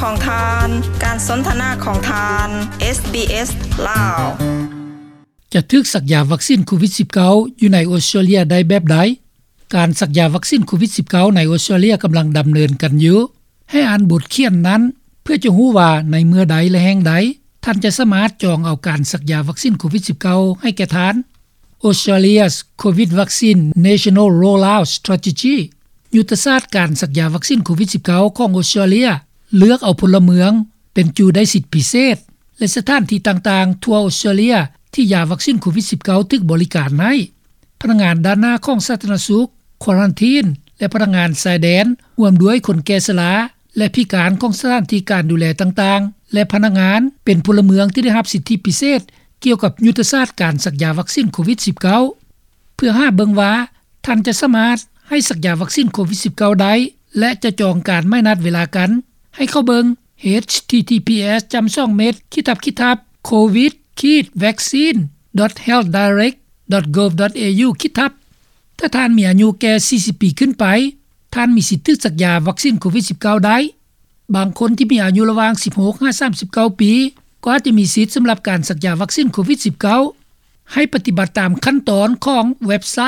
ຂອງທ່ານ, ການສົນທະນາຂອງທ່ານ ເອສບີເອສ ລາວ. ຈະຖືກສັກຢາວັກຊີນໂຄວິດສິບເກົ້າ ຢູ່ໃນອົດສະຕຣາເລຍໄດ້ແບບໃດ? ການສັກຢາວັກຊີນໂຄວິດສິບເກົ້າ ໃນອົດສະຕຣາເລຍກຳລັງດຳເນີນກັນຢູ່. ໃຫ້ອ່ານບົດຂຽນນັ້ນ ເພື່ອຈະຮູ້ວ່າໃນເມື່ອໃດ ແລະ ແຫ່ງໃດ ທ່ານຈະສາມາດຈອງເອົາການສັກຢາວັກຊີນໂຄວິດສິບເກົ້າ ໃຫ້ແກ່ທ່ານ. Australia's COVID Vaccine National Rollout Strategy ຍຸດທະສາດການສັກຢາວັກຊີນໂຄວິດສິບເກົ້າ ຂອງອົດສະຕຣາເລຍ ເລືອກເອົາພົນລະເມືອງເປັນຈຸໄດ້ສິດພິເສດ ແລະ ສະຖານທີ່ຕ່າງໆທົ່ວອົດສະຕຣາເລຍ ທີ່ຢາວັກຊີນໂຄວິດສິບເກົ້າ ຖືກບໍລິການໃຫ້. ພະນັກງານດ້ານໜ້າຂອງສາທາລະນະສຸກ, ຄວາຣັນທີນ ແລະ ພະນັກງານຊາຍແດນ, ຮ່ວມດ້ວຍຄົນແກ່ຊະລາ ແລະ ພິການຂອງສະຖານທີ່ການດູແລຕ່າງໆ ແລະ ພະນັກງານເປັນພົນລະເມືອງທີ່ໄດ້ຮັບສິດທິພິເສດກ່ຽວກັບຍຸດທະສາດການສັກຢາວັກຊີນໂຄວິດສິບເກົ້າ. ເພື່ອຫາເບິ່ງວ່າທ່ານຈະສາມາດໃຫ້ສັກຢາວັກຊີນໂຄວິດສິບເກົ້າໄດ້ ແລະ ຈະຈອງການໝາຍນັດເວລາກັນ ໃຫ້ເຂົ້າເບິ່ງ ເອດເອັດ ທີ ທີ ພີ ເອສ ຈ້ຳສອງ ເມັດ ຂີດທັບ ຂີດທັບ ໂຄວິດ ຂີດ ແວັກຊີນ ດອດ ເຮວ ໄດເຣັກ ດອດ ໂກວ ດອດ ເອ ຢູ ຂີດທັບ. ຖ້າທ່ານມີອາຍຸແກ່ສີ່ສິບປີຂຶ້ນໄປ, ທ່ານມີສິດຖືກສັກຢາວັກຊີນໂຄວິດສິບເກົ້າໄດ້. ບາງຄົນທີ່ມີອາຍຸລະຫວ່າງສິບຫົກຫາສາມສິບເກົ້າປີ ກໍອາດຈະມີສິດສຳລັບການສັກຢາວັກຊີນໂຄວິດສິບເກົ້າ. ໃຫ້ປະຕິບັດຕາມຂັ້ນຕອນຂອງເວັບໄຊ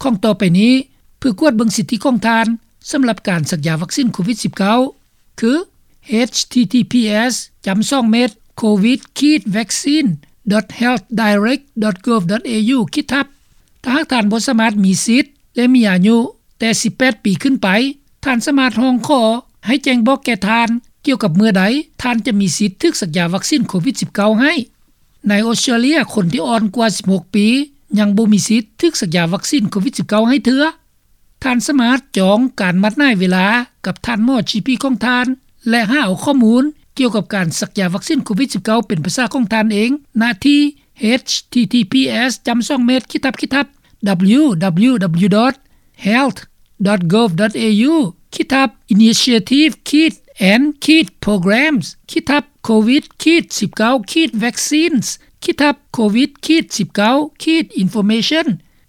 ຂອງຕໍ່ໄປນີ້ ເພື່ອກວດເບິ່ງສິດທິຂອງທ່ານສຳລັບການສັກຢາວັກຊີນໂຄວິດສິບເກົ້າ ຄື ເອດເອັດ ທີ ທີ ພີ ເອສ ຈ້ຳສອງ ເມັດ ໂຄວິດ ຂີດ ແວັກຊີນ ດອດ ເຮວ ໄດເຣັກ ດອດ ໂກວ ດອດ ເອ ຢູ ຂີດທັບ. ຖ້າຫາກທ່ານບໍ່ສາມາດມີສິດ ແລະ ມີອາຍຸແຕ່ສິບແປດປີຂຶ້ນໄປ, ທ່ານສາມາດຮ້ອງຂໍໃຫ້ແຈ້ງບອກແກ່ທ່ານກ່ຽວກັບເມື່ອໃດທ່ານຈະມີສິດຖືກສັກຢາວັກຊີນໂຄວິດສິບເກົ້າໃຫ້. ໃນອົດສະຕຣາເລຍ, ຄົນທີ່ອ່ອນກວ່າສິບຫົກປີ ຍັງບໍ່ມີສິດຖືກສັກຢາວັກຊີນໂຄວິດສິບເກົ້າໃຫ້ເທື່ອ. ທ່ານສາມາດຈອງການນັດໝາຍເວລາກັບທ່ານໝໍຈີພີຂອງທ່ານ ແລະ ຫາເອົາຂໍ້ມູນກ່ຽວກັບການສັກຢາວັກຊີນໂຄວິດສິບເກົ້າເປັນພາສາຂອງທ່ານເອງ ນະທີ່ ເອດເອັດ ທີ ທີ ພີ ເອສ ຈ້ຳສອງ ເມັດ ຂີດທັບ ຂີດທັບ ດັບເບິນຢູ ດັບເບິນຢູ ດັບເບິນຢູ ດອດ ເຮວ ດອດ ໂກວ ດອດ ເອ ຢູ ຂີດທັບ ອິນນິຊີເອທີບ ຂີດ ແອນ ຂີດ ໂປຣແກຣມ ຂີດທັບ ໂຄວິດ ຂີດ ສິບເກົ້າ ຂີດ ແວັກຊີນ ຂີດທັບ ໂຄວິດ ຂີດ ສິບເກົ້າ ຂີດ ອິນຟໍເມຊັນ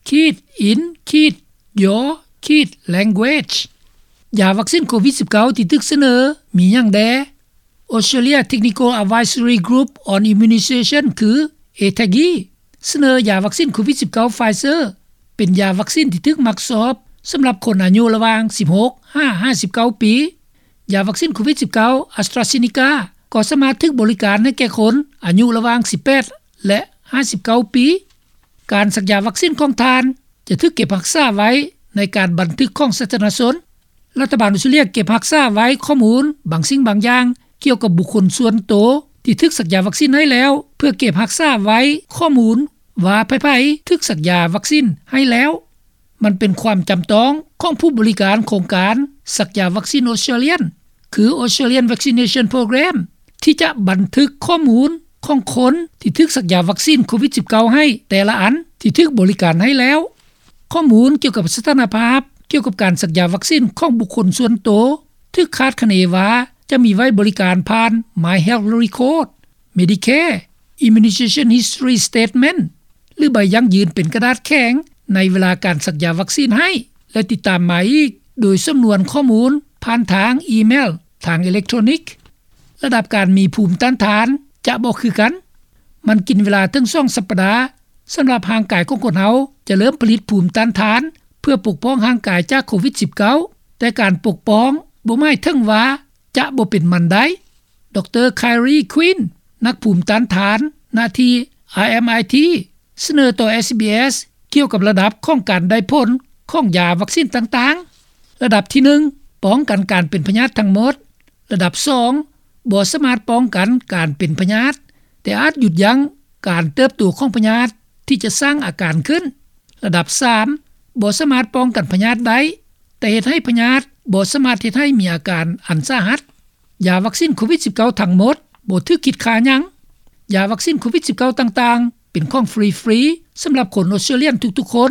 ຂີດ ອິນ ຂີດ ຢູ ຂີດ ແລັງເວຈ. ຢາວັກຊີນໂຄວິດສິບເກົ້າທີ່ຖືກສະເໜີມີຫຍັງແດ່? Australia Technical Advisory Group on Immunisation ຄື เอแทกอี ສະເໜີຢາວັກຊີນໂຄວິດສິບເກົ້າ Pfizer ເປັນຢາວັກຊີນທີ່ຖືກມັກຊອບສຳລັບຄົນອາຍຸລະຫວ່າງສິບຫົກຫາຫ້າສິບເກົ້າປີ. ຢາວັກຊີນໂຄວິດສິບເກົ້າ AstraZeneca ກໍສາມາດຖືກບໍລິການໃຫ້ແກ່ຄົນອາຍຸລະຫວ່າງສິບແປດ ແລະ ຫ້າສິບເກົ້າປີ. ການສັກຢາວັກຊີນຂອງທ່ານຈະຖືກເກັບຮັກສາໄວ້ໃນການບັນທຶກຂອງສາທາລະນະຊົນ. ລັດຖະບານອົດສະຕຣາເລຍເກັບຮັກສາໄວ້ຂໍ້ມູນບາງສິ່ງບາງຢ່າງກ່ຽວກັບບຸກຄົນສ່ວນໂຕທີ່ຖືກສັກຢາວັກຊີນໃຫ້ແລ້ວ ເພື່ອເກັບຮັກສາໄວ້ຂໍ້ມູນວ່າໃຜໆຖືກສັກຢາວັກຊີນໃຫ້ແລ້ວ. ມັນເປັນຄວາມຈຳຕ້ອງຂອງຜູ້ບໍລິການໂຄງການສັກຢາວັກຊີນ Australian ຄື Australian Vaccination Program ທີ່ຈະບັນທຶກຂໍ້ມູນຂອງຄົນທີ່ຖືກສັກຢາວັກຊີນໂຄວິດສິບເກົ້າໃຫ້ແຕ່ລະອັນທີ່ຖືກບໍລິການໃຫ້ແລ້ວ. ຂໍ້ມູນກ່ຽວກັບສະຖານະພາບກ່ຽວກັບການສັກຢາວັກຊີນຂອງບຸກຄົນສ່ວນໂຕ ຖືກຄາດຄະເນວ່າຈະມີໄວ້ບໍລິການຜ່ານ My Health Record, Medicare, Immunization History Statement ຫຼື ໃບຢັ້ງຢືນເປັນກະດາດແຂງໃນເວລາການສັກຢາວັກຊີນໃຫ້ ແລະ ຕິດຕາມມາອີກໂດຍສຳນວນຂໍ້ມູນຜ່ານທາງອີເມວ, ທາງເອເລັກໂທຣນິກ. ລະດັບການມີພູມຕ້ານທານຈະບໍ່ຄືກັນ. ມັນກິນເວລາເຖິງສອງສັບປະດາສຳລັບຮ່າງກາຍຂອງຄົນເຮົາຈະເລີ່ມຜະລິດພູມຕ້ານທານເພື່ອປົກປ້ອງຮ່າງກາຍຈາກໂຄວິດສິບເກົ້າ, ແຕ່ການປົກປ້ອງບໍ່ໝາຍເຖິງວ່າຈະບໍ່ເປັນມັນໄດ້. ດຣ Kylie Quinn ນັກພູມຕ້ານທານນະທີ່ RMIT ສະເໜີຕໍ່ SBS ກ່ຽວກັບລະດັບຂອງການໄດ້ຜົນຂອງຢາວັກຊີນຕ່າງໆ. ລະດັບທີໜຶ່ງ ປ້ອງກັນການເປັນພະຍາດທັງໝົດ. ລະດັບສອງ ບໍ່ສາມາດປ້ອງກັນການເປັນພະຍາດ, ແຕ່ອາດຢຸດຢັ້ງການເຕີບໂຕຂອງພະຍາດທີ່ຈະສ້າງອາການຂຶ້ນ. ລະດັບສາມ ບໍ່ສາມາດປ້ອງກັນພະຍາດໄດ້, ແຕ່ເຮັດໃຫ້ພະຍາດບໍ່ສາມາດເຮັດໃຫ້ມີອາການອັນສາຫັດ. ຢາວັກຊີນໂຄວິດສິບເກົ້າທັງໝົດບໍ່ຖືກຄິດຄ່າຫຍັງ. ຢາວັກຊີນໂຄວິດສິບເກົ້າຕ່າງໆ ເປັນຂອງຟຣີໆສຳລັບຄົນອົດສະຕຣາເລຍນທຸກໆຄົນ,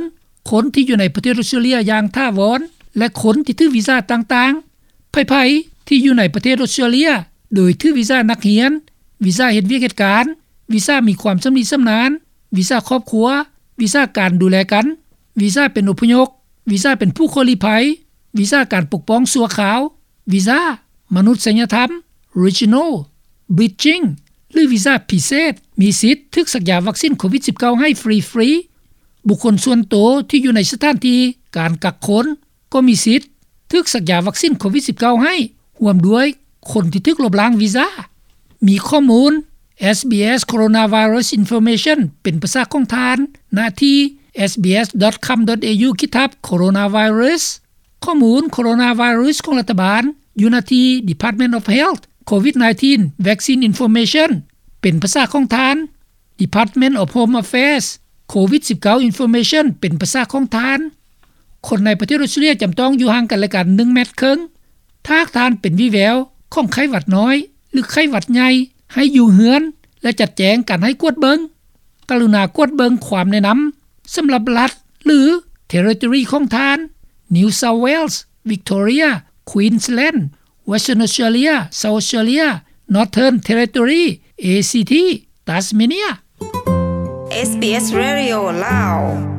ຄົນທີ່ຢູ່ໃນປະເທດອົດສະຕຣາເລຍຢ່າງຖາວອນ ແລະ ຄົນທີ່ຖືວີຊາຕ່າງໆ. ໃຜໆທີ່ຢູ່ໃນປະເທດອົດສະຕຣາເລຍໂດຍຖືວີຊານັກຮຽນ, ວີຊາເຮັດວຽກເຮັດການ, ວີຊາມີຄວາມຊຳນິຊຳນານ, ວີຊາຄອບຄົວ, ວີຊາການດູແລກັນ, ວີຊາເປັນອົບພະຍົບ, ວີຊາເປັນຜູ້ຂໍລີ້ໄພ, ວີຊາການປົກປ້ອງຊົ່ວຄາວ, ວີຊາມະນຸດສະຍະທຳ, Regional Bridging ຫຼື ວີຊາພິເສດ ມີສິດຖືກສັກຢາວັກຊິນໂຄວິດ-19 ໃຫ້ຟຣີໆ. ບຸກຄົນສ່ວນໂຕທີ່ຢູ່ໃນສະຖານທີ່ການກັກຄົນ ກໍມີສິດຖືກສັກຢາວັກຊິນໂຄວິດ-19 ໃຫ້ ຮ່ວມດ້ວຍຄົນທີ່ຖືກລົບລ້າງວີຊາ. ມີຂໍ້ມູນ SBS Coronavirus Information ເປັນພາສາຂອງທ່ານ ນະທີ່ sbs.com.au ຂີດທັບ coronavirus. ຂໍ້ມູນໂຄໂຣນາໄວຣັສຂອງລັດຖະບານ ຢູ່ນະທີ່ Department of Health COVID-19 Vaccine Information ເປັນພາສາຂອງທ່ານ Department of Home Affairs COVID-19 Information ເປັນພາສາຂອງທ່ານ. ຄົນໃນປະເທດອອສເຕຣເລັຽຈຳຕ້ອງຢູ່ຫ່າງກັນແລະກັນ ໜຶ່ງແມັດເຄິ່ງ. ຖ້າຫາກທ່ານເປັນວີແວວຂອງໄຂ້ຫວັດນ້ອຍ ຫຼື ໄຂ້ຫວັດໃຫຍ່ ໃຫ້ຢູ່ເຮືອນ ແລະ ຈັດແຈງການໃຫ້ກວດເບິ່ງ. ກະລຸນາກວດເບິ່ງຄວາມແນະນຳສຳລັບລັດ ຫຼື Territory ຂອງທ່ານ New South Wales, Victoria, Queensland, Western Australia, South Australia, Northern Territory, ACT, Tasmania. SBS Radio ລາວ.